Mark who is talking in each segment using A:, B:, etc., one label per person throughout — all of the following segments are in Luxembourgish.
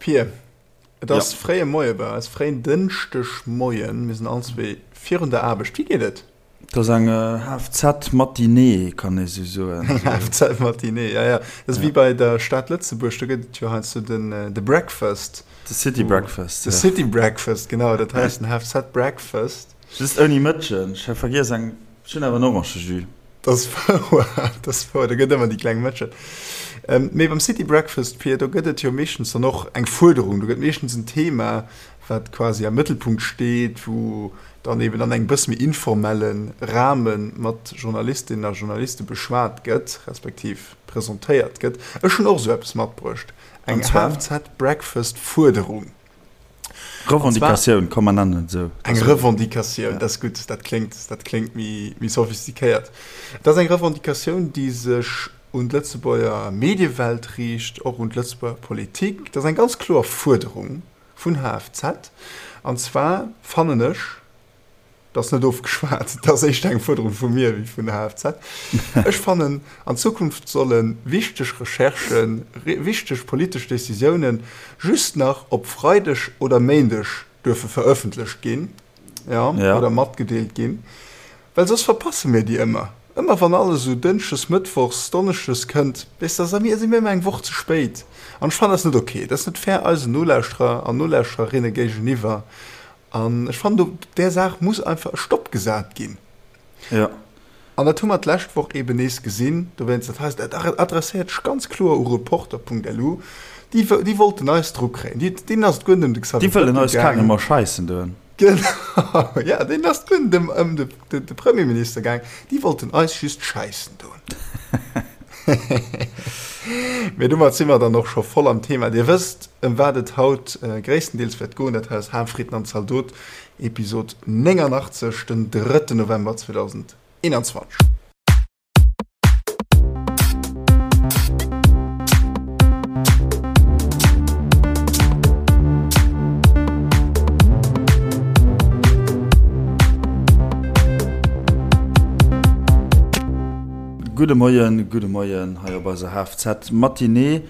A: Pir, et ass fréie Moie bei eis, fréien Dënschdegmoien. Mir sinn allenzwee virun der Aarbecht. Wéi geet et?
B: Et ass eng HFZ-Matinée, kann ee sou soen.
A: Eng HFZ-Matinée, ja, ja. Dat ass wéi bei der Stad Lëtzebuerg, do gëtt et jo heiansdo den, de Breakfast.
B: De City Breakfast,
A: ja. De City Breakfast, genau. Dat hei ass den HFZ-Breakfast.
B: Just ouni Mëtschen. Ech hu vergiess eng, ech hunn awer en Orangejus.
A: Dat ass wouer, dat ass wouer. Do gëtt ëmmer déi kleng Mëtschen. Mee beim City Breakfast, Pir, do gëtt et jo meeschtens dann och eng Fuerderung. Do gëtt meeschtens en Thema, wat quasi am Mëttelpunkt steet, wou dann eben an engem bësse méi informelle Rahme mat Journalistinnen a Journaliste beschwat gëtt, respektiv presentéiert gëtt. Ech hunn och esou eppes matbruecht, eng HFZ-Breakfast-Fuerderung.
B: Revendicatioun, komm mer nennen et esou.
A: Eng Revendicatioun, dat ass gutt, dat kléngt, dat kléngt méi, méi sophistiquéiert. Et ass eng Revendicatioun, déi sech un d'Lëtzebuerger Mediewelt riicht, och un d'Lëtzebuerger Politik. Dat ass eng ganz kloer Fuerderung vun HFZ. An zwar fannen ech, Dat ass net ofgeschwat, dat ass éischter eng Fuerderung vu mir wéi vun der HFZ. Ech fannen, an Zukunft solle wichteg Recherchen, wichteg politesch Décisiounen just nach op Freideg oder Méindeg duerfe verëffentlecht ginn, jo, oder matgedeelt ginn, well soss verpasse mir déi ëmmer. Ëmmer wann alles esou Dënschdes, Mëttwochs, Donneschdes kënnt, weess de, da si mir ëmmer eng Woch ze spéit. An ech fannen dat net ok. Dat ass net fair eisen Nolauschterer an Nolauschtererinne géigeniwwer. An ech fannen, do där Saach muss einfach e Stopp gesat ginn.
B: Jo.
A: An dat hu mer d'lescht Woch eeben nees gesinn. Dowéinst, dat heist, dat adresséiert sech ganz kloer u Reporter.lu. Déi, déi wollten eis dru kréien. Déi, deenen ass et guer net ëm de
B: Xavier Déi wëllen eis
A: Bettel
B: gaangen. Kagen scheissen doen.
A: Genau, ja, deenen ass et guer net ëm, ëm de, de, de Premierminister gaang. Déi wollten eis just scheissen doen. Mee domat si mer dann och scho voll am Thema. Dir wësst, ëm wat et haut gréisstendeels wäert goen. Dat hei ass Ham, Fritten an Zaldot, Episod 89, den drëtten November 2021.
B: Gudde Moien, gudde Moien hei op eiser HFZ Matinée.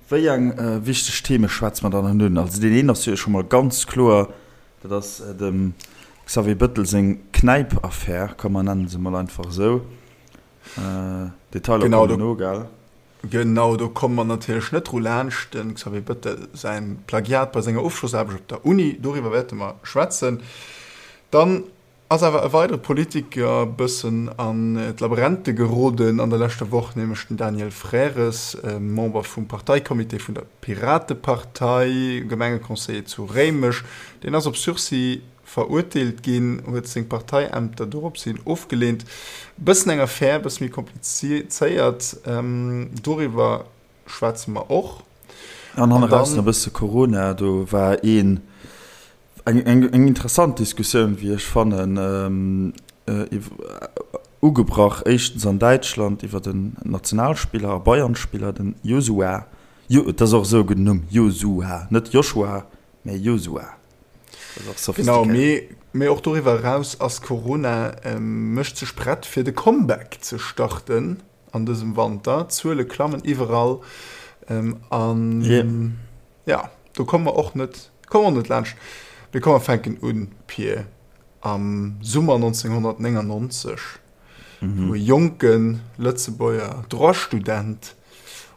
B: Wéi eng wichteg Theme schwätze mer dann haut un? Also deen een ass jo scho mol ganz kloer, dat ass dem Xavier Bëttel seng Knäip-Affär, komm mer nennen se mol einfach esou. Detailer
A: kommen no, gell? Genau, do komme mer natierlech net dru laanscht, dem Xavier Bëttel säin Plagiat bei senger Ofschlossaarbecht op der Uni, doriwwer wäerte mer schwätzen. Dann Ass awer e weidere Politiker bëssen an d'Laberente geroden an der leschter Woch, nämlech den Daniel Frères, Member vum Parteicomité vun der Piratepartei, Gemengeconseiller zu Réimech. Deen ass op Sursis verurteelt ginn, huet seng Parteiämter dorops hin ofgeleent. Bëssen eng Affär, bësse méi komplizéiert, doriwwer schwätze mer och.
B: An hanne raus nach e bësse Corona, do war een Eng interessant Diskussioun, wéi ech fannen, ugebrach éischtens an Däitschland iwwer den Nationalspiller a Bayern-Spiller, den Josua, Jo, et ass och esou e gudden Numm, Josua, net Joshua, mä Josua.
A: Dat ass och Genau, sophistiquéiert. mee och doriwwer eraus ass Corona mécht sech prett fir de Comeback ze starten an dësem Wanter. D'Zuele klammen iwwerall an. Ja, do komme mer och net, komme mer och net laanscht. Mee komm, mer fänken un, Pir, am Summer 1999, wou e jonke Lëtzebuerger Droit-Student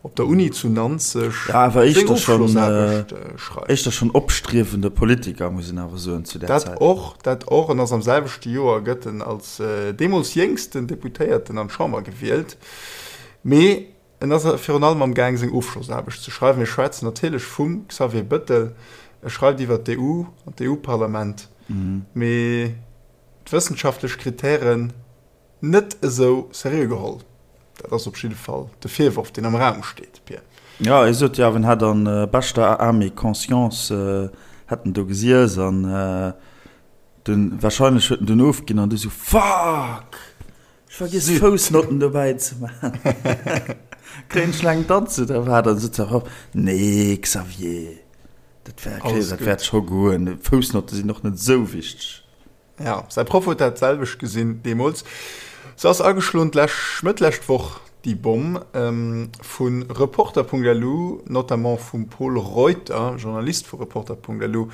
A: op der Uni zu Nanzeg
B: Ja, awer seng éischter schonn, Ofschlossaarbecht schreift. éischter schonn opstriewende Politiker, muss een awer soen, zu där
A: Dat Zäit. och, dat och. En ass am selwechte Joer gëtt en als deemools jéngsten Deputéierten an d'Chamber gewielt. Mee En ass virun allem am Gaang seng Ofschlossaarbecht ze schreiwen. Mir schwätzen natierlech vum Xavier Bëttel. E schreift iwwer d'EU an d'EU-Parlament, mee d'wëssenschaftlech Kritären net esou seriö geholl. Dat ass op jidde Fall de Virworf, deen am Raum steet, Pir.
B: Jo, e sot jo awer, en hätt an beschter Âme et conscience hätt en do gesiess an dunn, warscheinlech huet en dunn ofginn an du sou, Fuck! Ech vergiess Foussnotten dobäi ze man. Kréien ech laang Danz oder wat? An sot se erop, Nee Xavier, dat wär, Alles dat wäert scho goen. Foussnotte sinn och net esou wichteg.
A: Ja, säi Proff huet dat selwecht gesinn deemools. Se ass ageschloen d'lescht, Mëtt lescht Woch, déi Bomm vu Reporter.lu, notamment vum Pol Reuter, Journalist vu Reporter.lu,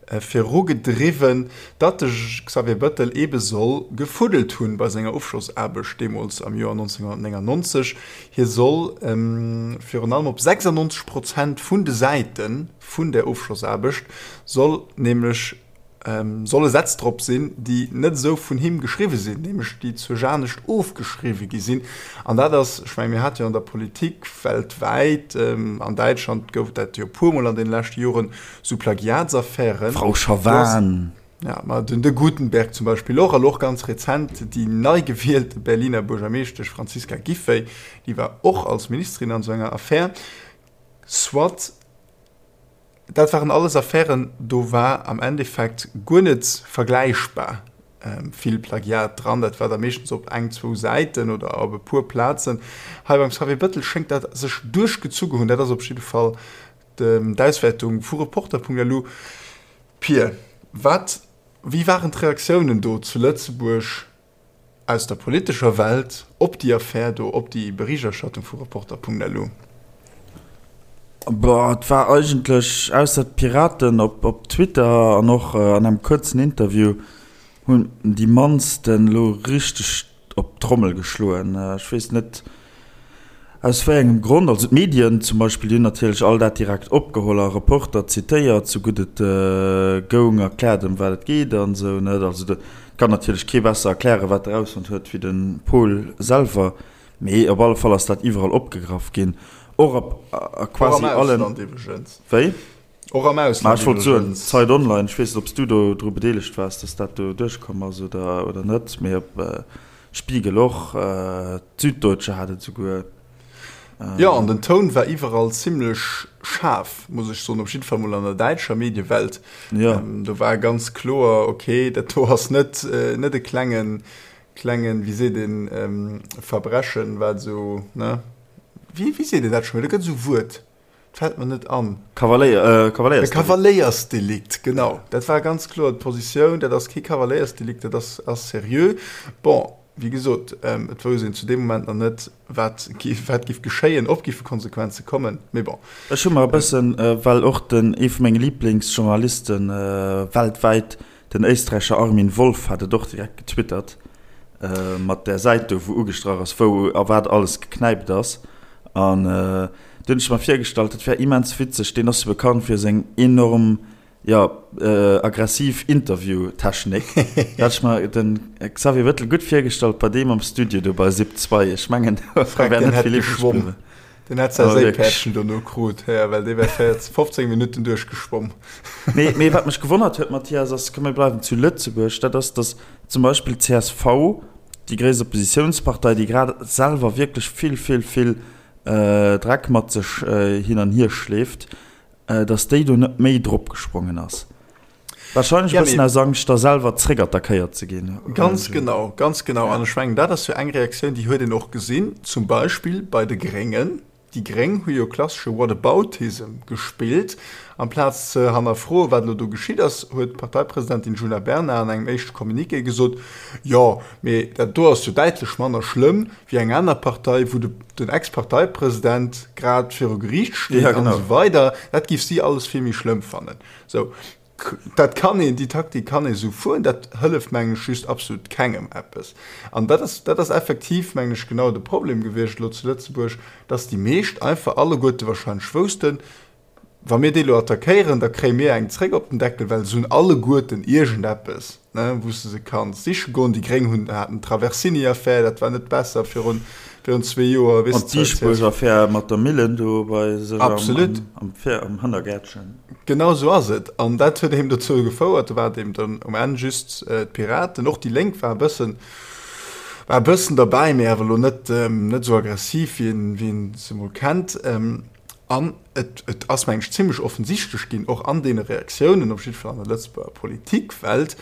A: virugedriwwen, datt de Xavier Bëttel eebe soll gefuddelt hunn bei senger Ofschlossaarbecht deemools am Joer 1999. Hie soll virun allem op 96 Prozent vun de Säite vun där Ofschlossaarbecht soll nämlech solle Sätz drop sinn, déi net esou vun him geschriwwe sinn, nämlech déi zur anescht ofgeschriwwe gi sinn. An dat ass, ech mengen, mir hate jo an der Politik weltwäit, an Däitschland gouf et dat jo e puermol an deene leschte Joren, esou Plagiatsaffären.
B: Frau Schavan.
A: Ja, ma den de Guttenberg zum Beispill och, an och ganz rezent déi nei gewielte Berliner Buergermeeschtesch Franziska Giffey, déi war och als Ministerin an esou enger Affär. Soit. Dat waren alles Affären, do war am Endeffekt guer net vergläichbar vill Plagiat dran. Dat war da meeschtens op eng, zwou Säiten oder op e puer Plazen. Hei beim Xavier Bettel schéngt dat sech duerchgezu hunn. Dat ass op jidde Fall d'Auswäertung vu Reporter.lu. Pir, wat, wéi waren d'Reaktiounen do zu Lëtzebuerg aus der politescher Welt op déi Affär do, op déi Berichterstattung vu Reporter.lu?
B: Boah, et war eigentlech, ausser d'Piraten op op Twitter an och an engem kuerzen Interview, hunn déi mannsten elo richteg op d'Trommel geschloen. Ech weess net Aus wéi engem Grond? Also d'Medien zum Beispill, déi hunn natierlech all dat direkt opgeholl a Reporter zitéiert, sou gutt et goung, erkläert ëm wat et geet an esou, net? Also do kann natierlech kee besser erklären, wat e rausfonnt huet, wéi de Paul selwer. Mee op alle Fall ass dat iwwerall opgegraff ginn, och op a quasi allen.
A: Och am Ausland iwwregens.
B: Wéi?
A: Och am Ausland
B: Ma ech wollt soen, Zeit Online, ech weess net, ob s du do dru bedeelegt waars, dass dat do duerchkomm ass oder, oder net, mee op Spiegel och, d'Süddeutsche hat et esouguer.
A: Jo, an den Toun war iwwerall zimlech schaarf, muss ech soen, op jidde Fall mol an der däitscher Mediewelt.
B: Jo.
A: Do war ganz kloer, okay, dat do ass net, net e klengen, klengen, wéi seet een, Verbrechen, wat esou, ne? Wéi, wéi seet een dat scho méi? Do gëtt esou e Wuert. Fällt mer net an.
B: Kavaléier, Kavaléiersdelikt.
A: E Kavaléiersdelikt, genau. Dat war ganz kloer d'Positioun. Dat ass kee Kavaléiersdelikt, dat ass, ass seriö. Bon, wéi gesot, et wousst een zu deem Moment nach net, wat géif, wat géif geschéien, ob géife Konsequenze kommen, mee bon.
B: Ech hu mer e bëssen, well och den, ee vu menge Liblingsjournalisten weltwäit, Den Éisträicher Armin Wolf hat et och direkt getwittert, mat där Säit do, wou ugestrach ass, wou a wat alles geknäipt ass. An du hunn ech mer virgestallt, dat wär immens witzeg, deen ass jo bekannt fir seng enorm, jo, aggressiv Interviewtechnik. Da hat ech mer de Xavier Bettel gutt virgestallt bei deem am Studio do bei Sip 2. Ech mengen, do wär net vill iwwreg bliwwen.
A: Den hätt säi Séipäerdchen dono krut, hä, well dee wär 14, 15 Minutten duerchgeschwomm.
B: Mee, mee wat mech gewonnert huet, Mathias, ass, komm mir bleiwen zu Lëtzebuerg, dat ass, datt zum Beispill d'CSV, déi gréisst Oppositiounspartei, déi grad selwer wierklech vill, vill, vill Dreck mat sech hin an hier schleeft, datt déi do net méi dropgesprongen ass. Wahrscheinlech e bëssen aus Angscht, da selwer zréckattackéiert ze ginn.
A: Ganz genau, ganz genau. An ech mengen, dat ass jo eng Reaktioun, déi huet een och gesinn, zum Beispill bei de Gréngen. Déi Gréng hu jo klassesche Whataboutism gespillt. Amplaz ze hannerfroen, wat elo do geschitt ass, huet d'Parteipresidentin Djuna Bernard an engem éischte Communiqué gesot, Jo, mee dat do ass jo däitlech manner schlëmm wéi eng aner Partei, wou den Ex-Parteipresident grad viru Geriicht steet an esou weider. Dat géif si alles vill méi schlëmm fannen. Sou, dat kann een, déi Taktik kann ee sou fueren, dat hëlleft, mengen ech, just absolut kengem eppes. An dat ass, dat ass effektiv, mengen ech, genau de Problem gewiescht elo zu Lëtzebuerg, dass déi meescht einfach alleguerte wahrscheinlech woussten, Wa mir déi elo attackéieren, da kréie mir eng zréck op den Deckel, well se hunn alleguerten iergendeppes, ne, wou s de se kanns siche goen. Déi Gréng hunn, haten d'Traversini-Affär, dat war net besser virun, virun zwee Joer,
B: weess
A: An
B: de. D'Diesbuerg-Affär mat der Millen do bei sech am,
A: Absolut.
B: am, am Hannergäertchen.
A: Genau esou ass et. An dat huet eben dozou gefouert, do war et eben dann um Enn just d'Piraten, och déi Lénk war e bëssen, war e bëssen derbäi, mee awer elo net, net esou aggressiv, wéi een, wéi een se emol kennt. An et, et ass, meng ech, zimlech offensichtlech ginn, och an deene Reaktiounen, op jidde Fall an der Lëtzebuerger Politikwelt,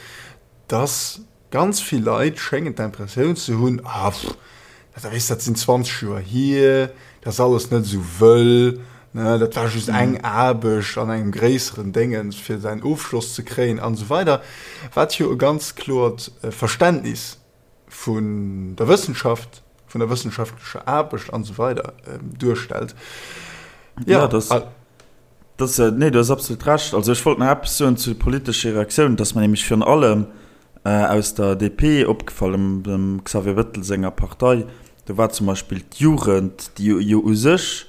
A: dass ganz vill Leit schéngen d'Impressioun ze hunn, Ah, pff, dat, weess, dat sinn 20 Joer hier, dat ass alles net esou wëll, ne, dat war just eng Aarbecht an engem gréisseren Déngens, fir säin Ofschloss ze kréien an esou weider. Wat jo e ganz kloert Verständnis vun der Wëssenschaft. vun der wëssenschaftlecher Aarbecht an esou weider duerstellt.
B: Ja, das, das, nee, du hues absolut Recht. Also ech wollt nach eppes soen zu de politesche Reaktiounen, dass mer nämlech virun allem aus der DP opgefall, dem Xavier Bettel senger Partei, do war zum Beispill d'Jugend, déi jo u sech,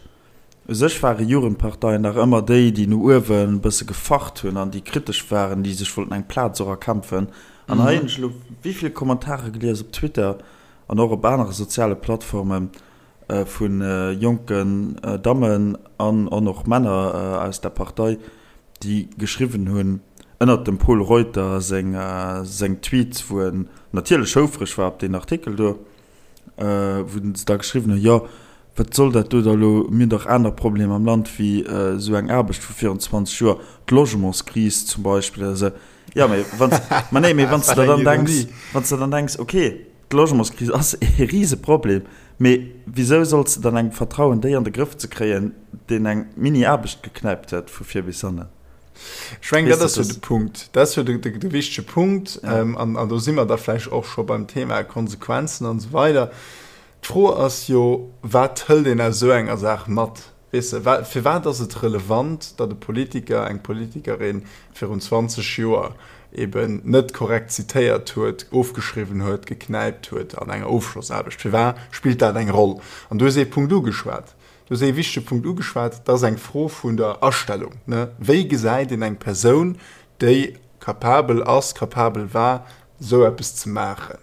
B: U sech ware Jugendparteien dach ëmmer déi, déi no uewen e bësse gefacht hunn an déi kritesch waren, déi sech wollten eng Plaz och erkämpfen. An hei hunn ech elo wéi vill Kommentare gelies op Twitter an och op anere soziale Plattforme vu jonken Dammen an och Männer aus der Partei, déi geschriwwen hunn ënnert dem Pol Reuter seng Tweets, wou en natierlech houfreg war op deen Artikel do, wou se da geschriwwen hunn, jo, wat soll dat do da elo, mir hunn dach aner Problemer am Land wéi esou eng Aarbecht vu virun 20 Joer, d'Logementskris zum Beispill oder esou. Jo, mee wann s, ma nee, mee wann s de der dann denks, wann s de dann denks, okay, d'Logementskris ass e Riseproblem, mee wisou solls de dann engem vertrauen, déi an de Grëff ze kréien, deen eng Mini-Aarbecht geknäipt huet vu vir bis hannen?
A: Ech mengen, dat ass jo de Punkt. Dat ass jo de, de, de wichtege Punkt. Ja. Ähm, an, an do si mer da vläicht och scho beim Thema Konsequenzen an esou weider. D'Fro ass jo, wat hëlt een aus esou enger Saach mat? Weess de, wa, firwat ass et relevant, datt e Politiker, eng Politikerin virun 20 Joer eben net korrekt zitéiert huet, ofgeschriwwen huet, geknäipt huet an enger Ofschlossaarbecht? Firwat spillt dat eng Roll? An du hues ee Punkt ugeschwat. Du hues ee wichtege Punkt ugeschwat, dat ass eng Fro vun der Astellung. Wéi gesäit een eng Persoun, déi capabel ass, capabel war, esou eppes ze maachen,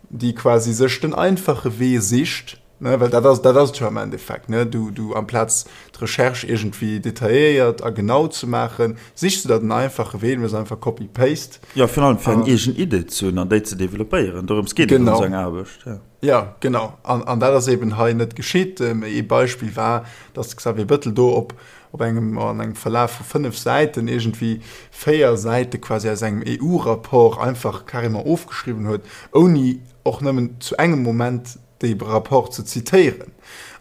A: déi quasi sech den einfache Wee sicht, well dat ass, dat ass et jo am Endeffekt, du, du amplaz d'Recherche iergendwéi detailléiert a genau ze maachen, sichs du der den einfache Wee, du méchs einfach Copy-Paste.
B: Jo, virun allem fir eng eegen Idee ze hunn an déi ze developpéieren, dorëms geet et an esou enger Aarbecht.
A: Jo, genau. An, an dat ass eben hei net geschitt. Ee Beispill war, datt de Xavier Bettel do op, op engem, an engem Verlaf vu 5 Säiten iergendwéi 4 Säite quasi aus engem EU-Rapport einfach carrément ofgeschriwwen huet, ouni och nëmmen zu engem Moment dee Rapport ze zitéieren.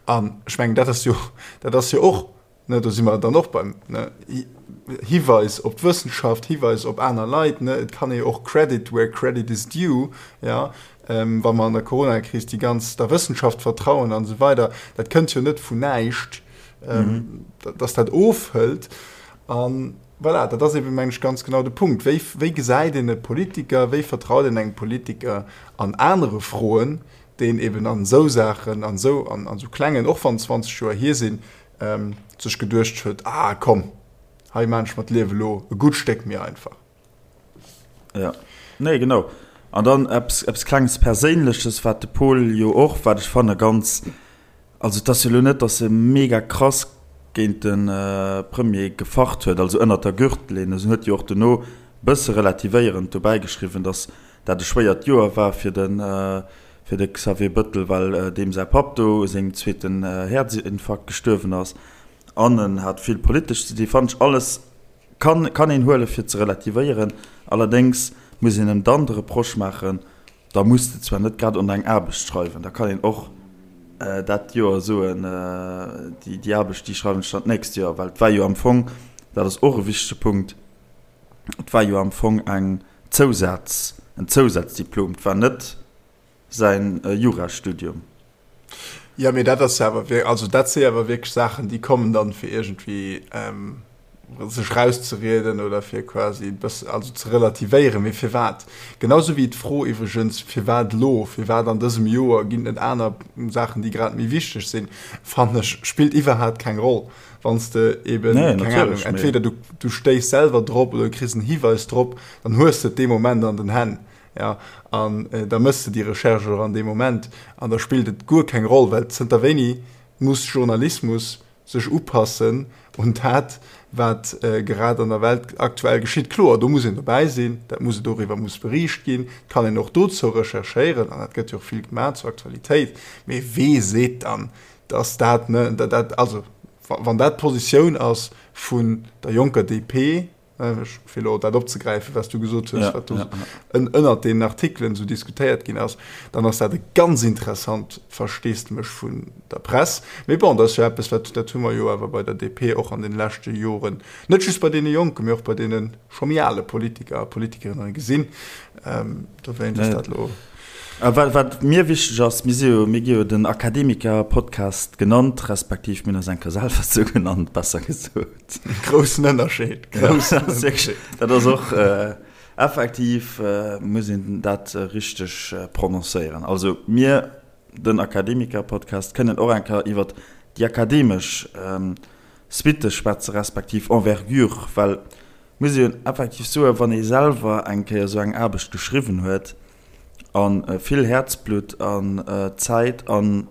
A: An ech mengen, dat ass jo, dat ass jo och Ne, do si mer dann och beim ne, Hiweis op d'Wëssenschaft, Hiweis op aner Leit. Ne, et kann ee jo och Credit where credit is due, ja, ähm, wa mer an der Coronakris déi ganz der Wëssenschaft vertrauen an esou weider. Dat kënnt jo net vun näischt, ähm, mhm. dass dat ofhëlt. An voilà, dat ass eben, meng ech, ganz genau de Punkt. Wéi, wéi gesäit een e Politiker, wéi vertraut een engem Politiker an anere Froen, deen eben an esou Saachen, an esou, an, an esou klengen, och wann 20 Joer hier sinn, sech geduecht huet, ah komm, hei maan ech mer d'Liewe lo e gutt Stéck méi einfach.
B: Ja, nee genau. An dann eppes, eppes klenges Perséinleches, wat de Pol jo och, wat ech fanne ganz, also et ass jo lo net, datt e mega krass géint de Premier gefacht huet, also ënnert der Gürtellinn, en huet jo och dono bësse relativéierend dobäi geschriwwen, datt dat e schwéiert Joer war fir de fir de Xavier Bëttel, well deem säi Papp do u sengem zweeten Häerzinfarkt gestuerwen ass an en hat vill politesch ze di. Fannen ech alles kann kann een huele fir ze relativéieren. Allerdéngs muss een em dann de Reproche maachen, da muss de zwar net grad un eng Aarbecht schreiwen, da kann een och dat Joer soen, déi déi Aarbecht déi schreiwen ech dann d'nächst Joer, well et war jo am Fong, dat ass och e wichtege Punkt, et war jo am Fong eng Zousaz, en Zousazdiplom, et war net säin Jurastudium.
A: Jo, mee dat ass jo awer, also dat si awer wierklech Saachen, déi kommen dann, fir iergendwéi sech rauszerieden oder fir quasi e bëssen, also ze relativéieren. Mee firwat? Genau sou wéi d'Fro iwwregens, firwat elo, firwat an dësem Joer, ginn et net aner Saachen, déi grad méi wichteg sinn, fannen ech, spillt iwwerhaapt keng Roll. Wann s de eben,
B: Nee,
A: keng
B: natierlech,
A: Ahnung,
B: mee.
A: entweder du, du stéiss selwer drop oder du kriss en Hiweis drop, dann hues de et dee Moment an den Hänn, ja, an da méchs de déi Recherche och an deem Moment an da spillt et guer keng Roll, well zënter wéini muss Journalismus sech upassen un dat, wat grad an der Welt aktuell geschitt? Kloer, do muss een dobäi sinn, dat muss, doriwwer muss beriicht ginn, et kann een och dozou recherchéieren an dat gëtt jo och vill gemaach zur Aktualitéit, mee wee seet dann, dass dat, ne, dat, also wann dat d'Positioun ass vun der jonker DP, fir elo dat opzegräifen, wat s du gesot hues, wat do ënnert deenen Artikelen esou diskutéiert ginn ass, dann ass dat e ganz interessant Versteesdemech vun der Press. Mee bon, dat ass jo eppes, wat, dat hu mer jo awer bei der DP och an deene leschte Joren, net just bei deene Jonken, mee och bei deene scho méi ale Politiker a Politikerinnen gesinn. Dowéinst ass dat elo.
B: A wat, wat mir wichteg ass, mir si jo, mir gi jo den Akademiker-Podcast genannt, respektiv mir hunn eis eng Kéier selwer esou genannt, besser gesot.
A: Groussen Ënnerscheed,
B: groussen Ënnerscheed. Dat ass och effektiv, muss een dat richteg prononcéieren. Also mir, den Akademiker-Podcast, kënnen och eng Kéier iwwert déi akademesch Suitte schwätze respektiv Envergure, well muss een effektiv soen, wann ee selwer eng Kéier esou eng Aarbecht geschriwwen huet a vill Häerzblutt an Zäit an,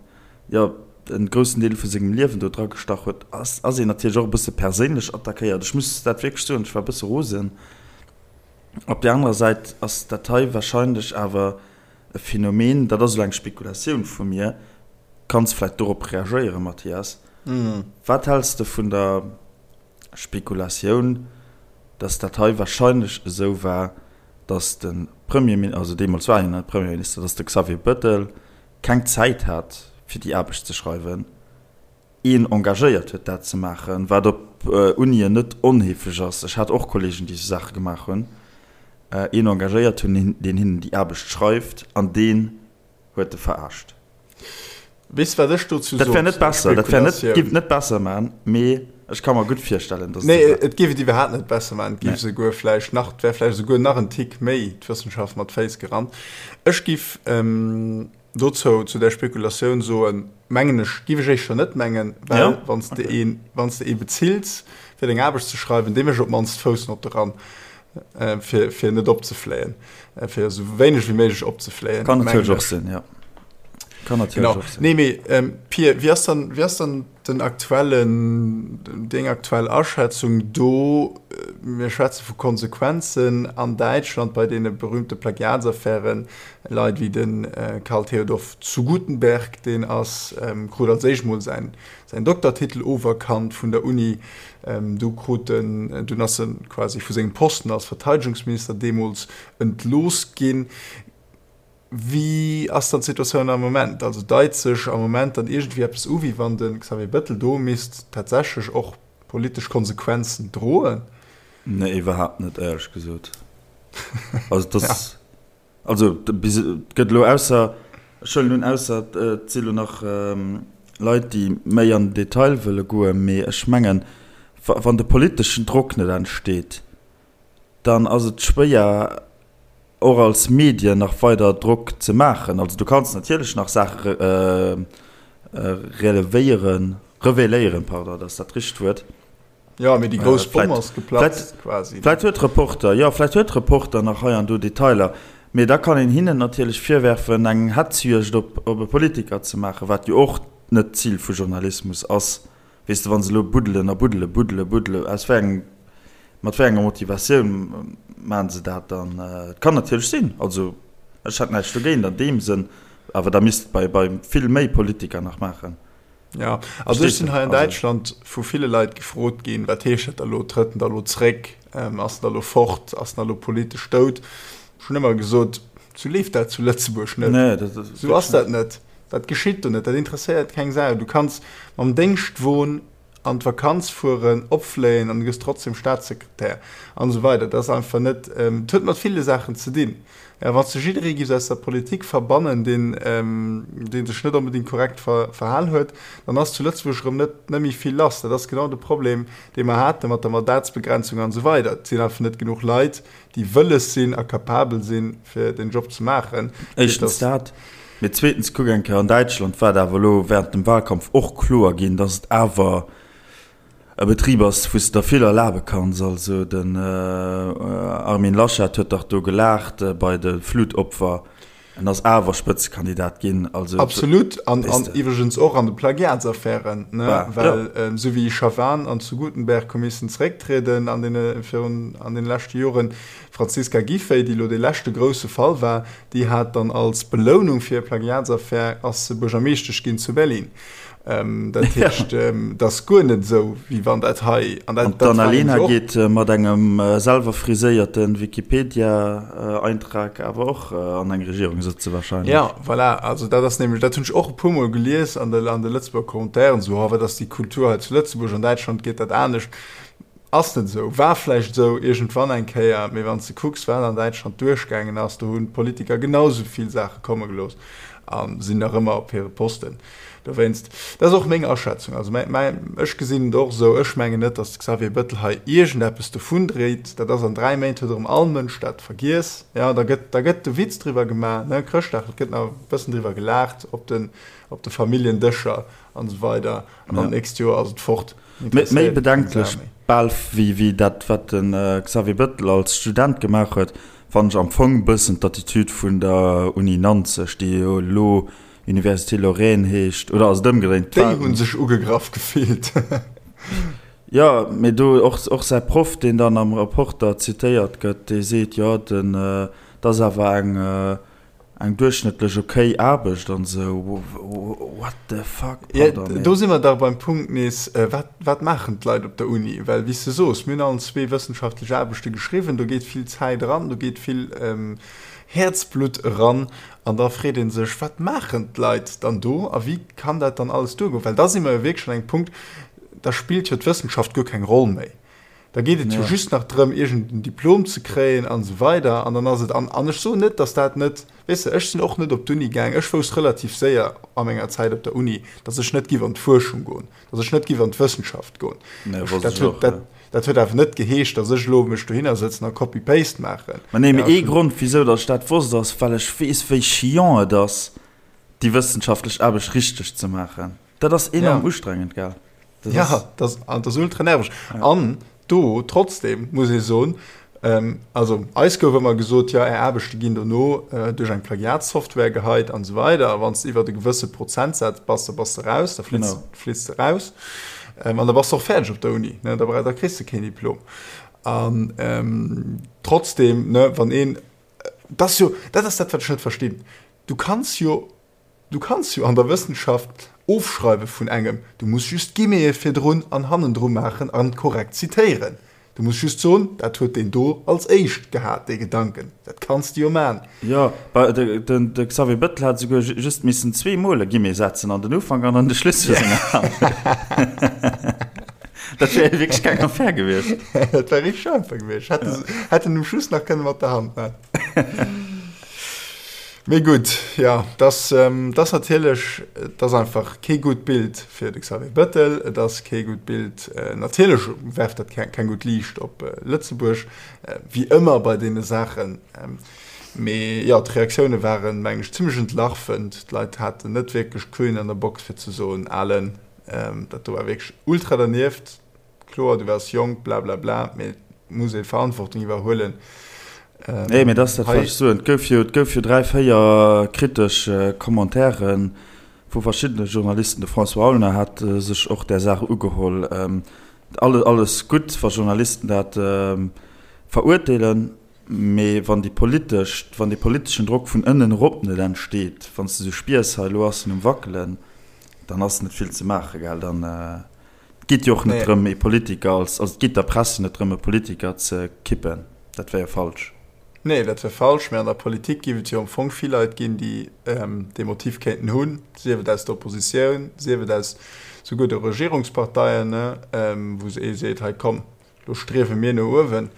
B: jo, en groussen Deel vu sengem Liewen do dra gestach huet, ass ass een natierlech och e bësse perséinlech attackéiert. Ech muss dat wierklech soen, ech war e bësse rosen. Op där anerer Säit ass dat hei wahrscheinlech awer e Phänomen, dat ass elo eng Spekulatioun vu mir, kanns vläicht dorop reagéieren, Mathias, Wat häls de vun der Spekulatioun, dass dat hei wahrscheinlech esou war, dass de Premierminister, also deemools war hien net Premierminister, dass de Xavier Bettel keng Zäit hat, fir déi Aarbecht ze schreiwen, een engagéiert huet, dat ze maachen, wat op Unien net onheefeg ass, ech hat och Kollegen, déi esou Saache gemaach hunn, een engagéiert hunn, deen hinnen déi Aarbecht schreift an deen huet e verarscht.
A: Weess wat ech dozou
B: Dat wär net besser, dat wär net, giff et net besser man, mee ech ka mer gutt virstellen,
A: dass et esou war. Nee, et giff et iwwerhaapt net besser man, et giff esouguer vläicht nach, et wär vläicht esouguer nach en Tick méi d'Wëssenschaft mat Féiss gerannt. Ech giff dozou, zu där Spekulatioun soen, mengen ech, giff ech éischter net mengen, well wann s de een, wann s de ee bezills fir deng Aarbecht ze schreiwen, dee mécht op d'mannst d'Foussnotte ran. Fir, fir net opzefléien, fir esou wéineg wéi méiglech opzefléien.
B: Kann natierlech och sinn, ja.
A: Kann natierlech och sinn. Nee, mee ähm, Pir, wéi ass dann, wéi ass dann den aktuellen, deng aktuell Aschätzung do? Mir schwätze vu Konsequenzen an Däitschland bei deene berühmte Plagiatsaffären, Leit wéi de Karl Theodor zu Guttenberg, deen ass, krut als éischt mol säin, säin Doktertitel oferkannt vun der Uni, Du krut en, dunn ass e quasi vu sengem Posten als Verteidegungsminister deemools entlooss ginn. Wéi ass dann d'Situatioun am Moment? Also deit sech am Moment dann iergendwéi eppes u, wéi wann de Xavier Bettel do misst tatsächlech och politesch Konsequenzen droen?
B: Nee, iwwerhaapt net, éierlech gesot. Also et ass. Also bis et gëtt elo ausser, ech huelen un, ausser et si elo nach Leit, déi méi an den Detail wëlle goen, mee ech mengen, wann de politeschen Drock net entsteet, dann ass et schwéier och als Medien nach weider Drock ze maachen. Also du kanns natierlech nach Saache relevéieren, revéléieren, pardon, dat ass dat richtegt Wuert.
A: Jo, mee déi grouss Bomm ass geplatzt
B: quasi. Vläit huet Reporter, jo, vläit huet Reporter nach hei an do Detailer, mee da kann een hinnen natierlech virwerfen, eng Hetzjuegd op op e Politiker ze maachen, wat jo och net d'Zil vu Journalismus ass. Weess de, wa se elo buddelen a buddele, buddele, buddele, aus wéi engem, mat wéi enger Motivatioun maachen se dat dann? Et kann natierlech sinn, also ech hätt näischt dogéint an deem Sënn, awer da misst et bei bei vill méi Politiker nach maachen.
A: Ja, also ech sinn hei an Däitschland vu ville Leit gefrot ginn, wat heescht dat da lo, trëtt en da lo zréck, ass en da lo fort, ass en da lo politesch dout? Ech hunn ëmmer gesot, sou leeft dat zu Lëtzebuerg net. Nee, dat ass Sou ass dat net. Dat geschitt do net, dat interesséiert keng Sau. Du kanns mam Déngschtwon an d'Vakanz fueren, opfléien an du gëss trotzdem Staatssekretär an esou weider. Dat ass einfach net, et huet mat ville Saachen ze dinn. Ja, wann s de jidderee giffs aus der Politik verbannen, deen, dee sech net onbedéngt korrekt verhal huet, dann ass zu Lëtzebuerg erëm net, net méi vill lass. Dat ass genau de Problem, dee mer hate mat der Mandatsbegrenzung an esou weider. Et sinn einfach net genuch Leit, déi wëlles sinn a capabel sinn, fir deen Job ze maachen.
B: Éischtens dat, mee zweetens, kuck eng Kéier, an Däitschland war et awer elo während dem Wahlkampf och kloer ginn, dass et awer e Betrib ass, wou s de der vill erlabe kanns. Also den Armin Laschet huet dach do gelaacht bei de Flutopfer, en ass awer Spëtzekandidat ginn.
A: Also Absolut, an iwwregens och an de Plagiatsaffären, ne, well esou wéi Schavan an zu Gutenberg hu missen zerécktrieden an deene virun an deene leschte Joren, d'Franziska Giffey, déi elo dee leschte grousse Fall war, déi hat dann als Belounung fir hir Plagiatsaffär ass se Buergermeeschtesch ginn zu Berlin. Dat heescht, et ass guer net esou, wéi wann dat hei.
B: An d'Annalena geet mat engem selwer friséierte Wikipedia-Eintrag awer och an eng Regierung sëtze
A: wahrscheinlech. Jo, voilà. Also dat ass nämlech, dat hunn ech och e puermol gelies an de an de Lëtzebuerger Commentairen, esou, oh wat ass déi Kultur hei zu Lëtzebuerg, an Däitschland geet dat anescht. Ass net esou. War vläicht esou iergendwann eng Kéier, mee wann s de kucks, wat an Däitschland duerchgaangen ass, do hunn d'Politiker genau esou vill Saache komme gelooss a sinn nach ëmmer op hire Posten. Dowéinst, dat ass och meng Aschätzung. Also mäi, mäi, ech gesinn et och esou, ech mengen net, datt de Xavier Bettel hei iergendeppes dovundréit. Dat ass an 3 Méint huet erëm all Mënsch dat vergiess. Jo, da gëtt, da gëtt de Witz driwwer gemaach, ne, Chrëschtdag, et gëtt nach e bëssen driwwer gelaacht op den, op de Familljendëscher an esou weider. An dann d'nächst Joer ass et fort.
B: Méi bedenklech bal wéi dat, wat de Xavier Bettel als Student gemaach huet, fannen ech am Fong bëssen d'Attitude vun der Uni Nanzeg, déi jo elo Université Lorraine heescht, oder ass et ëmgedréint?
A: Déi hu sech ugegraff gefillt.
B: Jo, mee do och, och säi Proff, deen dann am Reporter zitéiert gëtt, dee seet, jo, den, dat ass awer eng, eng duerchschnëttlech okay Aarbecht an esou. What the fuck,
A: pardon, mee. Do si mer dach beim Punkt nees, wat, wat maachen d'Leit op der Uni? Well, wéi s de soos, mir hunn allen zwee wëssenschaftlech Aarbechte geschriwwen, do geet vill Zäit eran, do geet vill Häerzblutt eran. An da freet ee sech, Wat maachen d'Leit dann do a wéi kann dat dann alles duergoen? Well da si mer jo wierklech an engem Punkt, da spillt jo d'Wëssenschaft guer keng Roll méi. Da geet et jo just nach drëm, iergend en Diplom ze kréien an esou weider. An dann ass et, an, an ech soen net, datt dat net, weess de, ech sinn och net op d'Uni gaang, ech wousst relativ séier a menger Zäit op der Uni, datt ech net giff an d'Fuerschung goen, datt ech net giff an d'Wëssenschaft goen. Dat huet, dat, dat huet awer net geheescht, datt ech elo mech dohinner sëtzen a Copy-Paste maachen.
B: Mä nee, mee ee Grond, wisou datt ech dat wosst, ass, well ech weess, wéi chiant et ass, déi wëssenschaftlech Aarbecht richteg ze maachen. Dat ass enorm ja. ustrengend, gell?
A: Dat ja, ass, das, das ass ultra nerveg. Ja. An do trotzdem muss ee soen, ähm, also eis gouf ëmmer gesot, ja är Aarbechte ginn dono äh, duerch eng Plagiatssoftware geheit an esou weider. A wann s de iwwer e gewësse Prozentsaz bass, da bass de raus, da flitz, genau. flitz de raus. Ähm, an da bass de och fäerdeg op der Uni, ne? Da, da kriss de keen Diplom. An ähm, trotzdem, ne, wann een, das jo, dat ass dat, wat ech net verstinn. Du kanns jo Du kanns jo an der Wëssenschaft ofschreiwe vun engem, du muss just Guillemete virdrun an hannendru maachen an korrekt zitéieren. Du muss just soen, dat huet deen do als éischt gehat, dee Gedanken. Dat kanns de jo man.
B: Jo, de Xavier Bettel hat esouguer just missen zweemol e Guillemet setzen, an den Ufank an an de Schluss vu senger Handlung. Dat wär wierklech keng Affär gewiescht.
A: Dat wär richteg einfach gewiescht. Hätt en um Schluss nach kënne mat der Hand man. Mee gutt, jo, dass ass natierlech, et ass einfach kee gutt Bild fir de Xavier Bettel, et ass kee gutt Bild, natierlech werft dat keng gutt Liicht op Lëtzebuerg, wéi ëmmer bei deene Saachen. Mee jo, d'Reaktioune waren, mengen ech, zimmlech entlarvend. D'Leit haten net wierklech d'Queen an der Box fir ze soen, Alen, dat do war wierklech ultra dernieft. Kloer, du waars jonk, blablabla, mee et muss ee Verantwortung iwwerhuelen.
B: Nee, mee dat ass dat, wat ech soen. Et gouf jo, et gouf jo 3, 4 kritesch Commentairen vu verschiddene Journalisten. De François Aulner hat sech och där Saach ugeholl. Alles gutt, wa Journalisten dat verurteelen, mee wann déi politesch, wann dee politeschen Drock vun ënnen erop net entsteet, wann s de sou spiers, hei elo ass en um Wackelen, dann ass net vill ze maachen, gell, dann. Et geet jo och net drëm, ee Politiker als, also et geet der Press jo net drëm, e Politiker ze kippen. Dat wär jo falsch.
A: Nee, dat wär falsch. Mä an der Politik géif et jo am Fong vill Leit ginn, déi dee Motiv kéinten hunn, sief et aus der Oppositioun, sief et aus souguer de Regierungsparteien, wou ee seet, hei komm, lo striewe mir no uewen.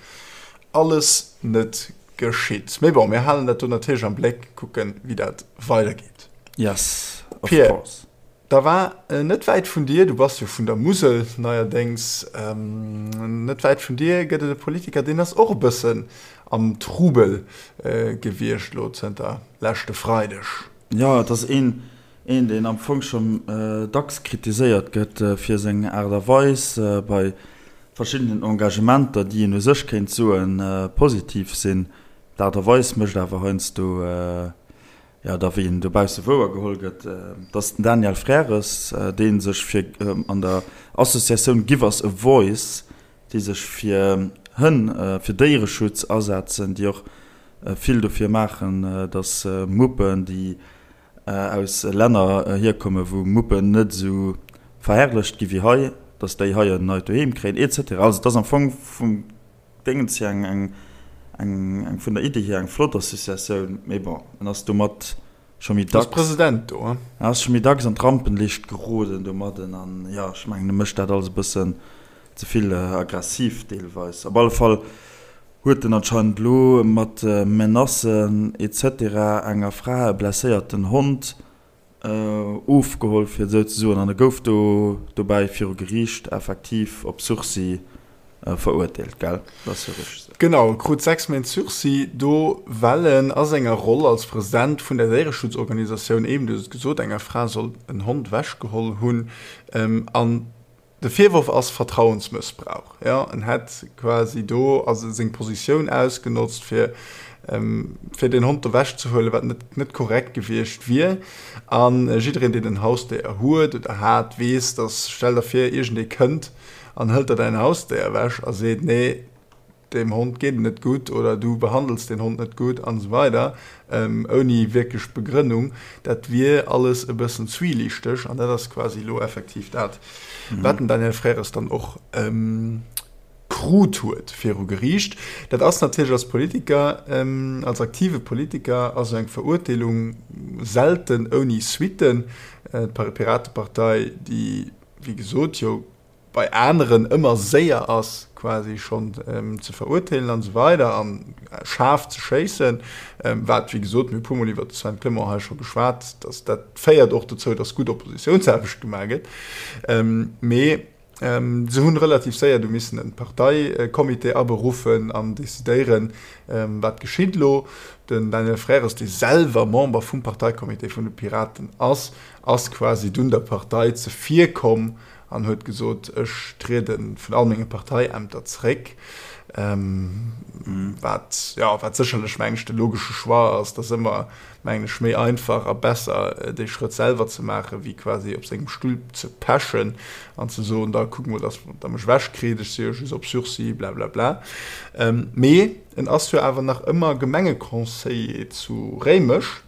A: Alles net geschitt. Mee bon, mir halen dat do natierlech am Bléck, kucken, wéi dat weidergeet.
B: Yes, of course.
A: Da war net wäit vun dir, du bass jo vun der Musel neierdéngs, net wäit vun dir gëtt et e Politiker, deen ass och e bëssen am Trubel gewiescht elo zënter leschte Freideg.
B: Jo, et ass een, een deen am Fong schonn dacks kritiséiert gëtt fir seng Aart a Weis bei verschiddenen Engagementer, déi een u sech kéint soen positiv sinn. D'Aart a Weis mécht awer heiansdo Jo, da wéi en dobausse wouer geholl gëtt, et ass den Daniel Frères, dee sech fir an der Associatioun Give Us a Voice, déi sech fir Hënn, fir Déiereschutz asetzen, déi och vill dofir maachen, datt Muppen, déi aus Länner hierkommen, wou Muppen net esou verherrlecht gi wéi hei, datt déi hei en neit Doheem kréien, et cetera. Also et ass am Fong vum Déngens hier eng, eng, eng, eng vun der Iddi hier eng flott Associatioun, mee bon, en ass domat scho méi
A: dacks. Ass President do,
B: hein? En ass scho méi dacks an d'Rampenlicht geroden domadden an jo, ech mengen, e mécht dat alles e bëssen. Ze vill aggressiv deelweis. Op alle Fall huet en anscheinend elo mat Menacen etc. Enger Fra e blesséierten Hond ofgeholl, fir et esou ze soen, an e gouf do dobäi viru Geriicht effektiv op Sursis verurteelt, gell? Dat ass jo
A: richteg esou. Genau, e krut 6 Méint Sursis do, well en a senger Roll als President vun der Déiereschutzorganisatioun, eben, du hues et gesot, enger Fra soll en Hond ewechgeholl hunn. An De Virworf ass Vertrauensmëssbrauch. Jo, en hätt quasi do also seng Positioun ausgenotzt, fir fir deen Hond do wechzehuelen, wat net net korrekt gewiescht wier. A jiddereen, deen en Hausdéier huet oder hat, weess, dass, stell der vir, iergendee kënnt an hëlt der däin Hausdéier ewech a seet, nee, Deem Hond geet et net gutt oder du behandels deen Hond net gutt an esou weider, ouni wierklech Begrënnung, dat wier alles e bëssen zwielichteg. An dat ass quasi elo effektiv dat, wat den Daniel Frères dann och krut huet viru Geriicht. Dat ass natierlech als Politiker, als aktive Politiker ass esou eng Verurteelung selten ouni Suitten. D'Piratepartei, déi wéi gesot jo bei aneren ëmmer séier ass quasi schonn ze verurteelen an esou weider an schaarf ze schéissen, wat wéi gesot, mir hu puer mol iwwert de Sven Clement hei scho geschwat, dass dat féiert och dozou, dass gutt Oppositiounsaarbecht gemaach gëtt. Mee se hunn relativ séier du missen e Parteicomité aberuffen an decidéieren, wat geschitt elo. Den Daniel Frères, dee selwer Member vum Parteicomité vun de Piraten ass, ass quasi dunn der Partei zevirkomm an huet gesot, ech triede vun all menge Parteiämter zeréck, wat, jo, wat sécherlech, mengen ech, de logesche Choix ass. Et ass ëmmer, mengen ech, méi einfach a besser, dee Schrëtt selwer ze maachen, wéi quasi op sengem Stull ze pechen an ze soen, da kuckt mol, datt Der mech ewechkritt, ech si jo just op Sursis, blablabla. Mee en ass jo awer nach ëmmer Gemengeconseiller zu Réimech.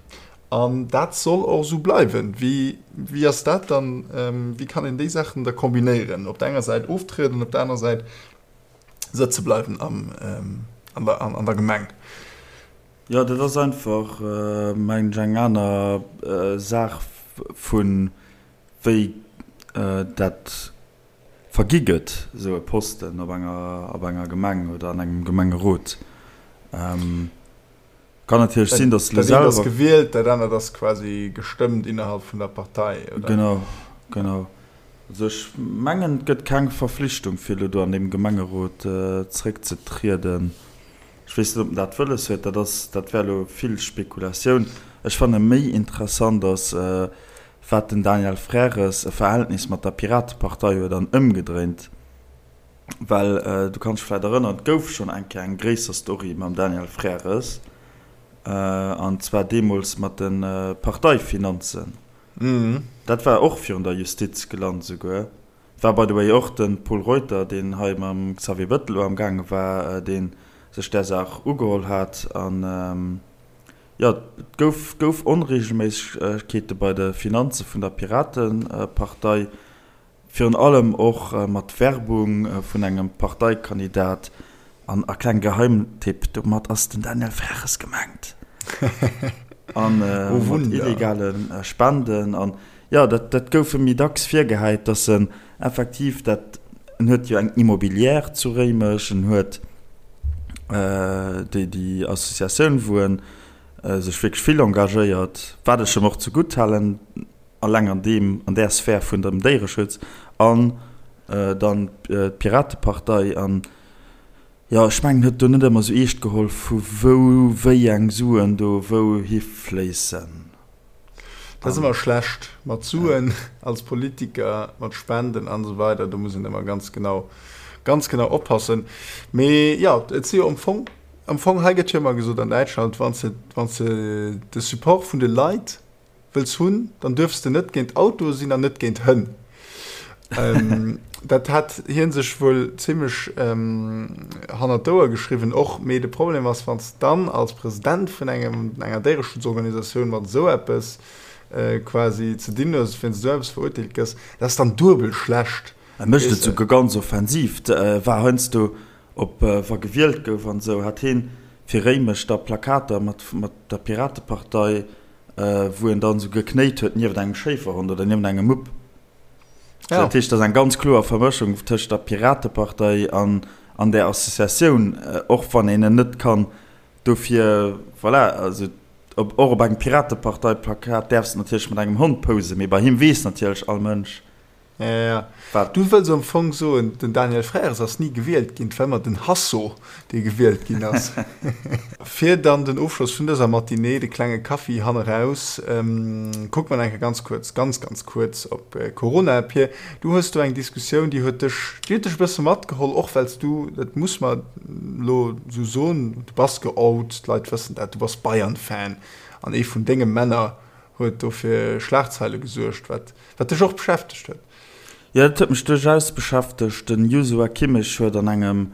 A: An dat soll och esou bleiwen. Wéi, wéi ass dat dann, wéi kann een déi Saachen da kombinéieren, op der enger Säit oftrieden, op der anerer Säit sëtze bleiwen am, an der, an der Gemeng?
B: Jo, dat ass einfach, mengen ech, eng aner Saach vu wéi dat vergi gëtt, esou e Posten op enger, op enger Gemeng oder an engem Gemengerot. Kann natierlech sinn,
A: dass
B: de
A: lo selwer. Dat eent ass gewielt, dat anert ass quasi gestëmmt innerhalb vun der Partei,
B: oder? Genau, genau. Also ech mengen, et gëtt keng Verflichtung, fir elo do an deem Gemengerot zréckzetrieden. Ech weess net, ob en dat wëlles huet. Dat ass, dat wär elo vill Spekulatioun. Ech fanne méi interessant ass, wat den Daniel Frères e Verhältnis mat der Piratepartei huet an ëmgedréint. Well du kanns dech vläit erënneren, et gouf schonn eng Kéier eng gréisser Story mam Daniel Frères, an zwar deemools mat de Parteifinanzen. Dat war och virun der Justiz gelant esouguer. Et war by the way och de Pol Reuter, deen hei mam Xavier Bettel elo amgaange war, dee sech där Saach ugeholl hat. An jo, et gouf gouf Onreegelméissegkeete bei de Finanze vun der Piratepartei. Virun allem och mat Werbung vun engem Parteikandidat. An a kleng Geheimtipp, domat ass den Daniel Freches gemengt. An mat illegale Spenden. An jo, dat dat gouf em méi dacks virgehäit, datt en effektiv dat, en huet jo eng Immobilière zu Réimech, en huet déi déi Associatioun, wou en sech wierklech vill engagéiert, wat ech em och zegutt halen, Alleng an deem, an där Sphär vun dem Déiereschutz an dann d'Piratepartei an, jo, ech mengen, huet do net ëmmer esou eescht geholl, vu wou wéi eng Suen do wou hifléissen.
A: Dat ass ëmmer schlecht mat Suen als Politiker, mat Spenden an esou weider, do muss een ëmmer ganz genau, ganz genau oppassen. Mee jo, et si jo am Fong, am Fong, hei gëtt jo ëmmer gesot an Däitschland, wann s de, wann s de de Support vun de Leit wëlls hunn, dann duerfs de net géint Autoe sinn an net géint Hënn. Dat hat hie sech wuel zimmlech hannert d'Ouer geschriwwen och. Mee de Problem ass, wann s de dann als President vun engem, enger Déiereschutzorganisatioun mat esou eppes quasi ze dinn hues, wéinst esou eppes verurteelt gëss, dat ass dann duebel schlecht.
B: E mécht et souguer ganz offensiv, war heiansdo op wa gewielt gouf an esou, hat hien fir Réimech da Plakater mat der Piratepartei, wou en dann esou geknéit huet nieft engem Schéiferhond oder nieft engem Mupp. Ja. Dat heescht, dat ass eng ganz kloer Vermëschung tëscht der Piratepartei an, an där Associatioun, och wann een en net kann dofir, voilà, also op, och op engem Piratepartei-Plakat däerfs de natierlech mat engem Hond posen, mee bei him weess natierlech all Mënsch,
A: Ja, ja, ja. Wat? Du wëlls am Fong soen, den Daniel Frères ass ni gewielt ginn, et war ëmmer den Hasso, dee gewielt ginn ass. Fir dann den Ofschloss vun dëser Matinée, de klenge Kaffi hanneraus, kucke mer nach eng Kéier ganz kuerz, ganz, ganz kuerz op Corona. Pir, du hues do eng Diskussioun, déi huet dech, déi huet dech e bësse matgeholl, och well s du, dat muss mer elo esou soen, du bass geout, d'Leit wëssen dat, du bass Bayern-Fan an ee vun denge Männer huet do fir Schlagzeile gesuergt, wat Wat dech och beschäftegt huet.
B: Jo, dat huet mech duerchaus beschäftegt. Den Joshua Kimmich huet an engem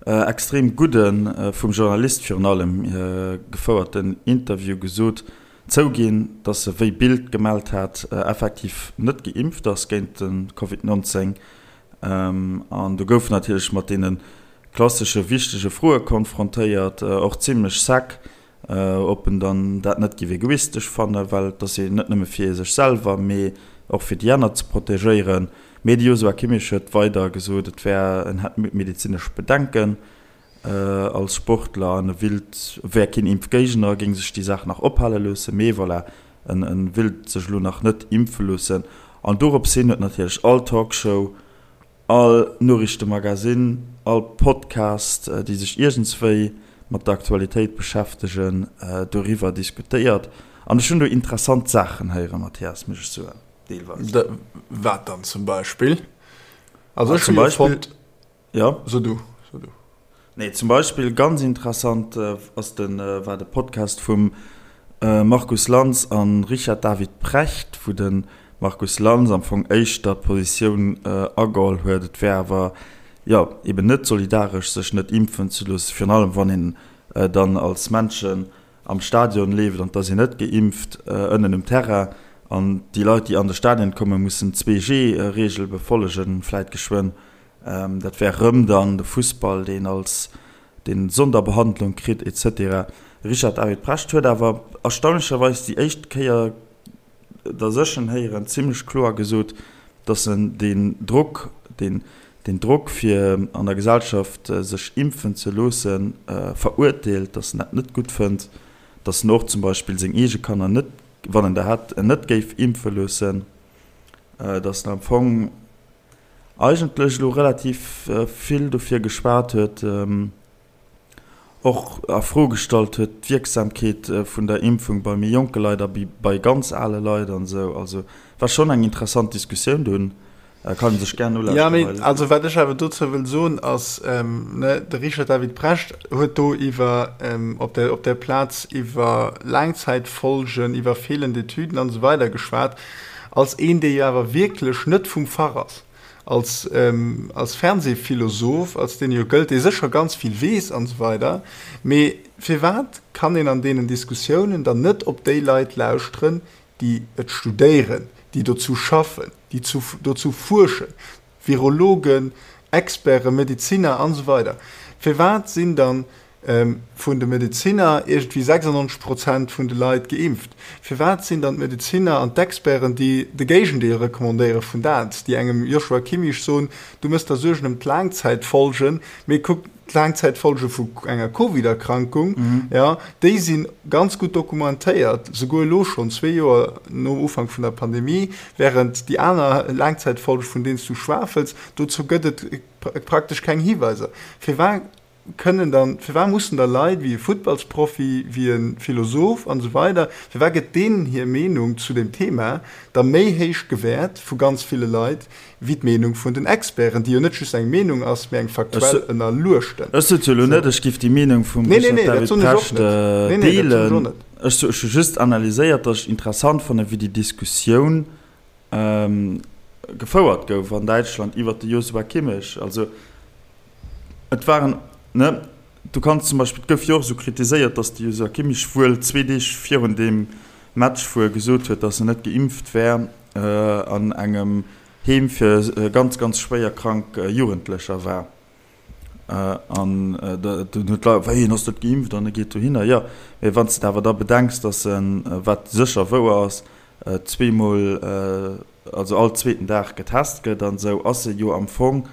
B: extrem gudden, vum Journalist virun allem gefouerten Interview gesot, zouginn, datt e wéi Bild gemellt hat, effektiv net geimpft ass géint de Covid 19. An do gouf en natierlech mat deene klassesche wichtege Froe konfrontéiert, och zimmlech sec. Ob en dann dat net géif egoistesch fannen, well et ass jo net nëmme fir sech selwer, mee och fir déi aner ze protegéieren. Mee de Joshua Kimmich huet weider gesot, et wär, en hätt medezinesch Bedenken als Sportler an e willt, wär keen Impfgéigner, géing sech déi Saach nach ophale loossen, mee voilà, en willt sech elo nach net impfe loossen. An dorops hin huet natierlech all Talkshow, All Noriichtemagazin, all Podcast, déi sech iergendswéi mat der Aktualitéit beschäftegen, doriwwer diskutéiert. An ech hunn do interessant Saachen héieren, Mathias, muss ech soen,
A: deelweis. Wat dann zum Beispill? Also ech hu jo fonnt.
B: Jo?
A: So du, so du.
B: Nee, zum Beispill ganz interessant ass de, war de Podcast vum Markus Lanz a Richard David Precht, wou de Markus Lanz am Fong éischter d'Positioun ageholl huet, et wär awer, jo, eben net solidaresch, sech net impfen ze loossen, virun allem wann een dann als Männchen am Stadion leeft an et ass een net geimpft ënnen um Terrain an déi Leit, déi an de Stadion kommen, mussen d'Zwee-G-Reegel befollegen, vläit geschwënn. Dat wär rëm dann de Fussball, deen als deen Sonderbehandlung kritt et cetera. Richard David Precht huet awer erstaunlecherweis déi éischt Kéier, datt ech en héieren, zimlech kloer gesot, datt en deen Drock, deen deen Drock fir an der Gesellschaft sech impfen ze loossen, verurteelt, datt en dat net gutt fënnt, datt en och zum Beispill seng eege Kanner net, wann en der hätt, net géif impfe loossen, datt en am Fong eigentlech elo relativ vill dofir geschwat huet, och a Fro gestallt huet d'Wierksamkeet vun der Impfung bei méi jonke Leit a bei ganz ale Leit an esou. Also war schonn eng interessant Diskussioun dunn, kann ee sech gär nolauschteren.
A: Jo, mee also wat ech awer dozou wëll soen ass, ne, de Richard David Precht huet do iwwer op der op der Plaz iwwer Laangzäitfolgen, iwwer feelend Etüden an esou weider geschwat. Als een, dee jo awer wierklech net vum Fach ass, als, als Fernsehphilosoph, als deen e jo gëllt, dee sécher ganz vill weess an esou weider, mee firwat kann een an deenen Diskussiounen dann net op déi Leit lauschteren, déi et studéieren, déi dozou schaffen, déi dozou fuerschen, Virologen, Experten, Medeziner an esou weider. Firwat sinn dann vun de Medeziner iergendwéi 96 Prozent vun de Leit geimpft? Firwat sinn dann d'Medeziner an d'Experten, déi de Géigendeel recommandéiere vun dat, déi engem Joshua Kimmich soen, du mëss der Suergen ëm d'Laangzäitfolgen, mee kuck, D'Laangzäitfolge vu enger Covid-Erkrankung, jo, déi si ganz gutt dokumentéiert, souguer elo schonn, zwee Joer nom Ufank vun der Pandemie, wärend déi aner Laangzäitfolge, vun deenen s du schwafels, dozou gëtt et praktesch keng Hiweiser. Firwat kënnen dann, firwat mussen da Leit wéi e Futtballsprofi, wéi e Philosoph an esou weider, firwat gëtt deenen hir Meenung zu deem Thema da méi héich gewäert vu ganz ville Leit wéi d'Meenung vun den Experten, déi jo net just eng Meenung ass, mee eng faktuell ënnerluechten.
B: Ech sot jo elo net, ech géif déi Meenung vum Richard David Precht deelen. Ech hu just analyséiert, datt ech interessant fannen, wéi déi Diskussioun gefouert gouf an Däitschland iwwert de Joshua Kimmich. Also et waren, ne, du kanns zum Beispill, et gouf jo och esou kritiséiert, datt de Joshua Kimmich wuel zwee Deeg virun deem Match, wou e gesot huet, datt en net geimpft wär, an engem Heem fir ganz, ganz schwéier krank Jugendlecher war. An dunn huet d'Leit, wéi, en ass net geimpft an e geet dohinner. Jo, mee wann s de awer da bedenks, datt en, wat sécher wouer ass, zweemol, also all zweeten Dag getest gëtt an esou, ass e jo am Fong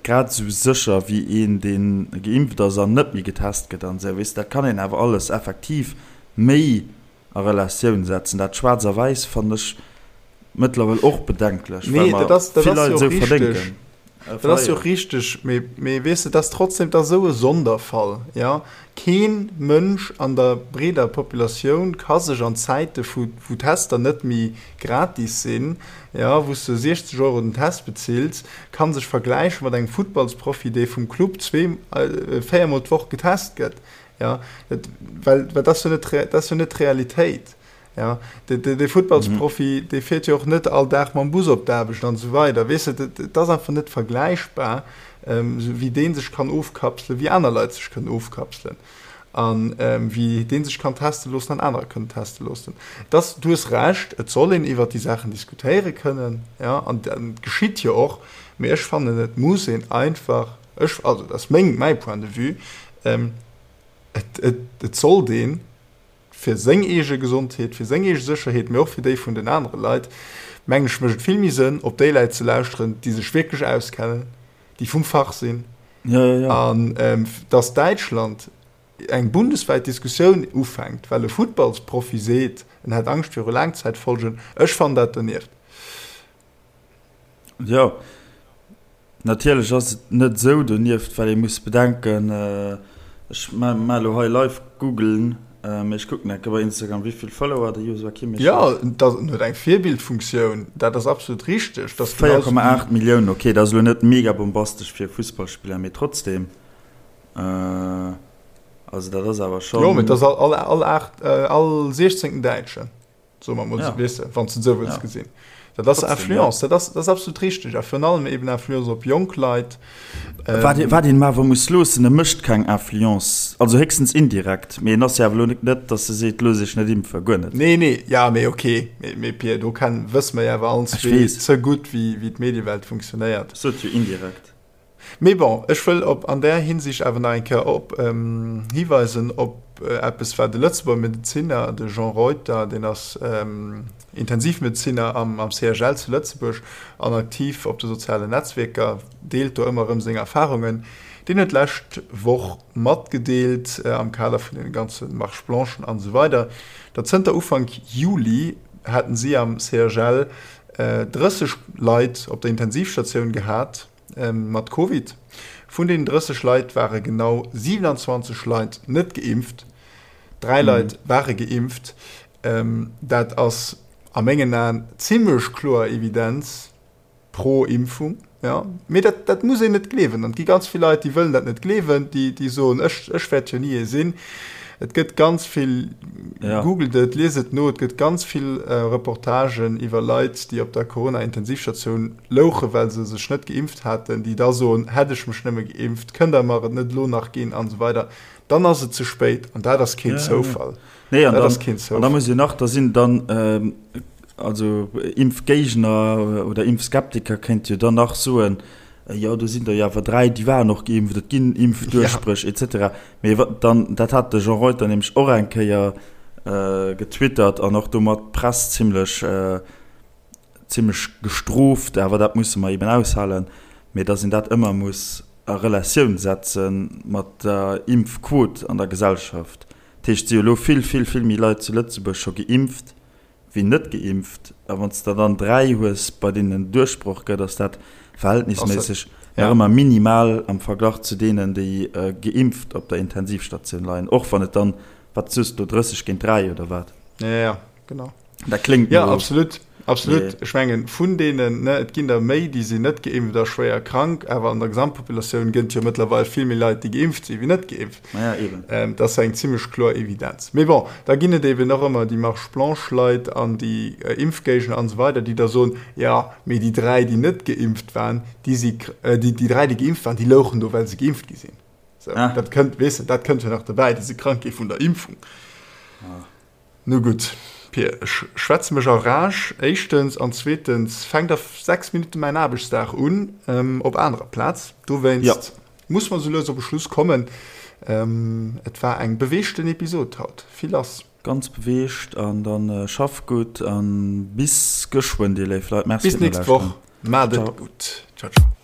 B: grad esou sécher wéi een, dee geimpft ass an net méi getest gëtt an esou. Weess de, dat kann een awer alles effektiv méi a Relatioun setzen. Dat Schwaarz a Wäiss fannen ech mëttlerweil och bedenklech, well
A: Nee,
B: mer
A: dat ass, dat
B: vill
A: ass
B: Leit
A: jo
B: esou
A: och richteg.
B: verdénken,
A: Dat ass jo
B: verléieren.
A: och richteg, mee, mee weess de, dat ass trotzdem, dat ass esou e Sonderfall, jo. Kee Mënsch an der breeder Populatioun ka sech an Zäite vu wou Tester net méi gratis sinn, jo, wou s de 60 Euro den Test bezills, ka sech vergläiche mat engem Futtballsprofi, dee vum Club zwee, véiermol d'Woch getest gëtt. Ja, dat, well, well dat ass jo net, dat ass jo net d'Realitéit. Ja, de, de, de Futtballsprofi, dee fiert jo och net all Dag mam Bus op d'Aarbecht an esou weider. Weess de, dat, dat ass einfach net vergläichbar, ähm, esou wéi dee sech kann ofkapselen, wéi aner Leit sech kënnen ofkapselen an ähm, wéi dee sech kann teste loossen an anerer kënnen teste loossen. Dass, du hues Recht, et soll een iwwert déi Saachen diskutéiere kënnen, ja, an dat geschitt jo och, mee ech fannen, et muss een einfach, ech, also dat ass meng, mäi Point de vue, Et, et, et sollt ee fir seng eege Gesondheet, fir seng eege Sécherheet, mee och fir déi vun den anere Leit, mengen ech, mécht et vill méi Sënn, op déi Leit ze lauschteren, déi sech wierklech auskennen, déi vum Fach sinn.
B: Ja, ja, ja.
A: An dass Däitschland eng bundeswäit Diskussioun ufänkt, well e Futtballsprofi seet, en hätt Angscht viru Laangzäitfolgen, ech fannen dat donieft.
B: Jo, natierlech ass et net esou donieft, well ee muss bedenken, ech maache elo hei live googlen, mee ech kucken enke bei Instagram, wéi vill Follower de Joshua Kimmich huet.
A: Jo, en huet eng Virbildfunktioun, dat ass absolut richteg.
B: 4,8 Milliounen, ok, dat ass elo net mega bombastesch fir e Fussballspiller, mee trotzdem, also dat ass awer schonn.
A: Jo, mee dat ass all siechzéngten Däitschen. Soe mer mol esou, weess de, wann s de et esou wëlls gesinn. Dat ass Influence, dat ass, dat ass absolut richteg. A virun allem eben Influence op jonk Leit.
B: Wat een, wat een em awer muss loossen, e mécht keng Influence, also héchstens indirekt, mee en ass jo awer elo net, datt e seet, looss iech net impfen, guer net.
A: Nee, nee, ja, mee ok, mee, mee Pir, do ken, wësse mer jo awer allen zwee ze gutt, wéi, wéi d'Mediewelt funktionéiert.
B: Ech sot jo indirekt.
A: Mee bon, ech wëll op an där Hinsicht awer nach eng Kéier op hiweisen op eppes, wat e Lëtzebuerger Medezinner, de Jean Reuter, deen ass Intensivmedezinner am CHL zu Lëtzebuerg an aktiv op de sozialen Netzwierker, deelt do ëmmer erëm seng Erfarungen. Deen huet d'lescht Woch matgedeelt, am Kader vun deene ganze Marches blanchen an esou weider, datt zënter Ufank Juli hätten si am CHL 30 Leit op der Intensivstatioun gehat mat Covid. Vun deenen 30 Leit ware genau 27 Leit net geimpft, 3 Leit ware geimpft. Dat ass a mengen Aen zimmlech kloer Evidenz pro Impfung. Mee dat dat muss een net gleewen. An et gi ganz vill Leit, déi wëllen dat net gleewen, déi déi soen, ech ech wäert jo ni ee sinn. Et gëtt ganz vill, googelt et, liest et no, et gëtt ganz vill Reportagen iwwer Leit, déi op der Corona-Intensivstatioun louchen, well se sech net geimpft haten, déi da soen, hätt ech mech nëmme geimpft, kënnt der mer et net elo nach ginn an esou weider. Dann ass et ze spéit an dat ass keen Zoufall.
B: Nee, an dann, an da muss een nach, da sinn dann, also Impfgéigner oder Impfskeptiker kéinte jo dann nach soen, jo do sinn der jo awer 3, déi waren och geimpft, et ginn Impfduerchbréch et cetera. Mee wa dann, dat hat de Jean Reuter nämlech och eng Kéier getwittert an och domat d'Press zimlech, zimlech gestrooft, awer dat musse mer eben aushalen, mee datt een dat ëmmer muss a Relatioun setze mat der Impfquot an der Gesellschaft. Dat heescht, et si jo elo vill, vill, vill méi Leit zu Lëtzebuerg scho geimpft wéi net geimpft. A wann s de dann 3 hues, bei deenen en Duerchbroch gëtt, ass dat verhältnisméisseg nach ëmmer minimal am Verglach zu deenen, déi geimpft op der Intensivstatioun leien, och wann et dann, wat soos de do, 30 géint 3 oder wat?
A: Jo, jo, genau.
B: Dat kléngt
A: no. Jo, absolut. Absolut. Ech mengen, vun deenen, ne, et ginn der méi, déi sinn net geimpft a schwéier krank, awer an der Gesamtpopulatioun gëtt et jo mëttlerweil vill méi Leit, déi geimpft sinn, wéi net geimpft.
B: Ma ja, eben.
A: Dat ass eng zimmlech kloer Evidenz. Mee bon, da ginn et eben och ëmmer déi Marche blanche-Leit an déi Impfgéigner an esou weider, déi da soen, jo, mee déi 3, déi net geimpft waren, déi si, déi 3, déi geimpft waren, déi louchen do, well se geimpft gi sinn. Sou, dat kënnt, weess de, dat kënnt jo nach dobäi, déi si krank gi vun der Impfung. Nu gutt, Pir, ech schwätze mech a Rage, éischtens, an zweetens fänkt a 6 Minutte mäin Aarbechtsdag un, op anerer Plaz. Dowéinst muss mer sou lues op e Schluss kommen. Et war eng beweegten Episod haut, vill lass.
B: Ganz beweegt an dann schaff gutt an bis geschwënn dir léif Leit.
A: Merci Bis nächst Woch. Maat et gutt. Ciao ciao.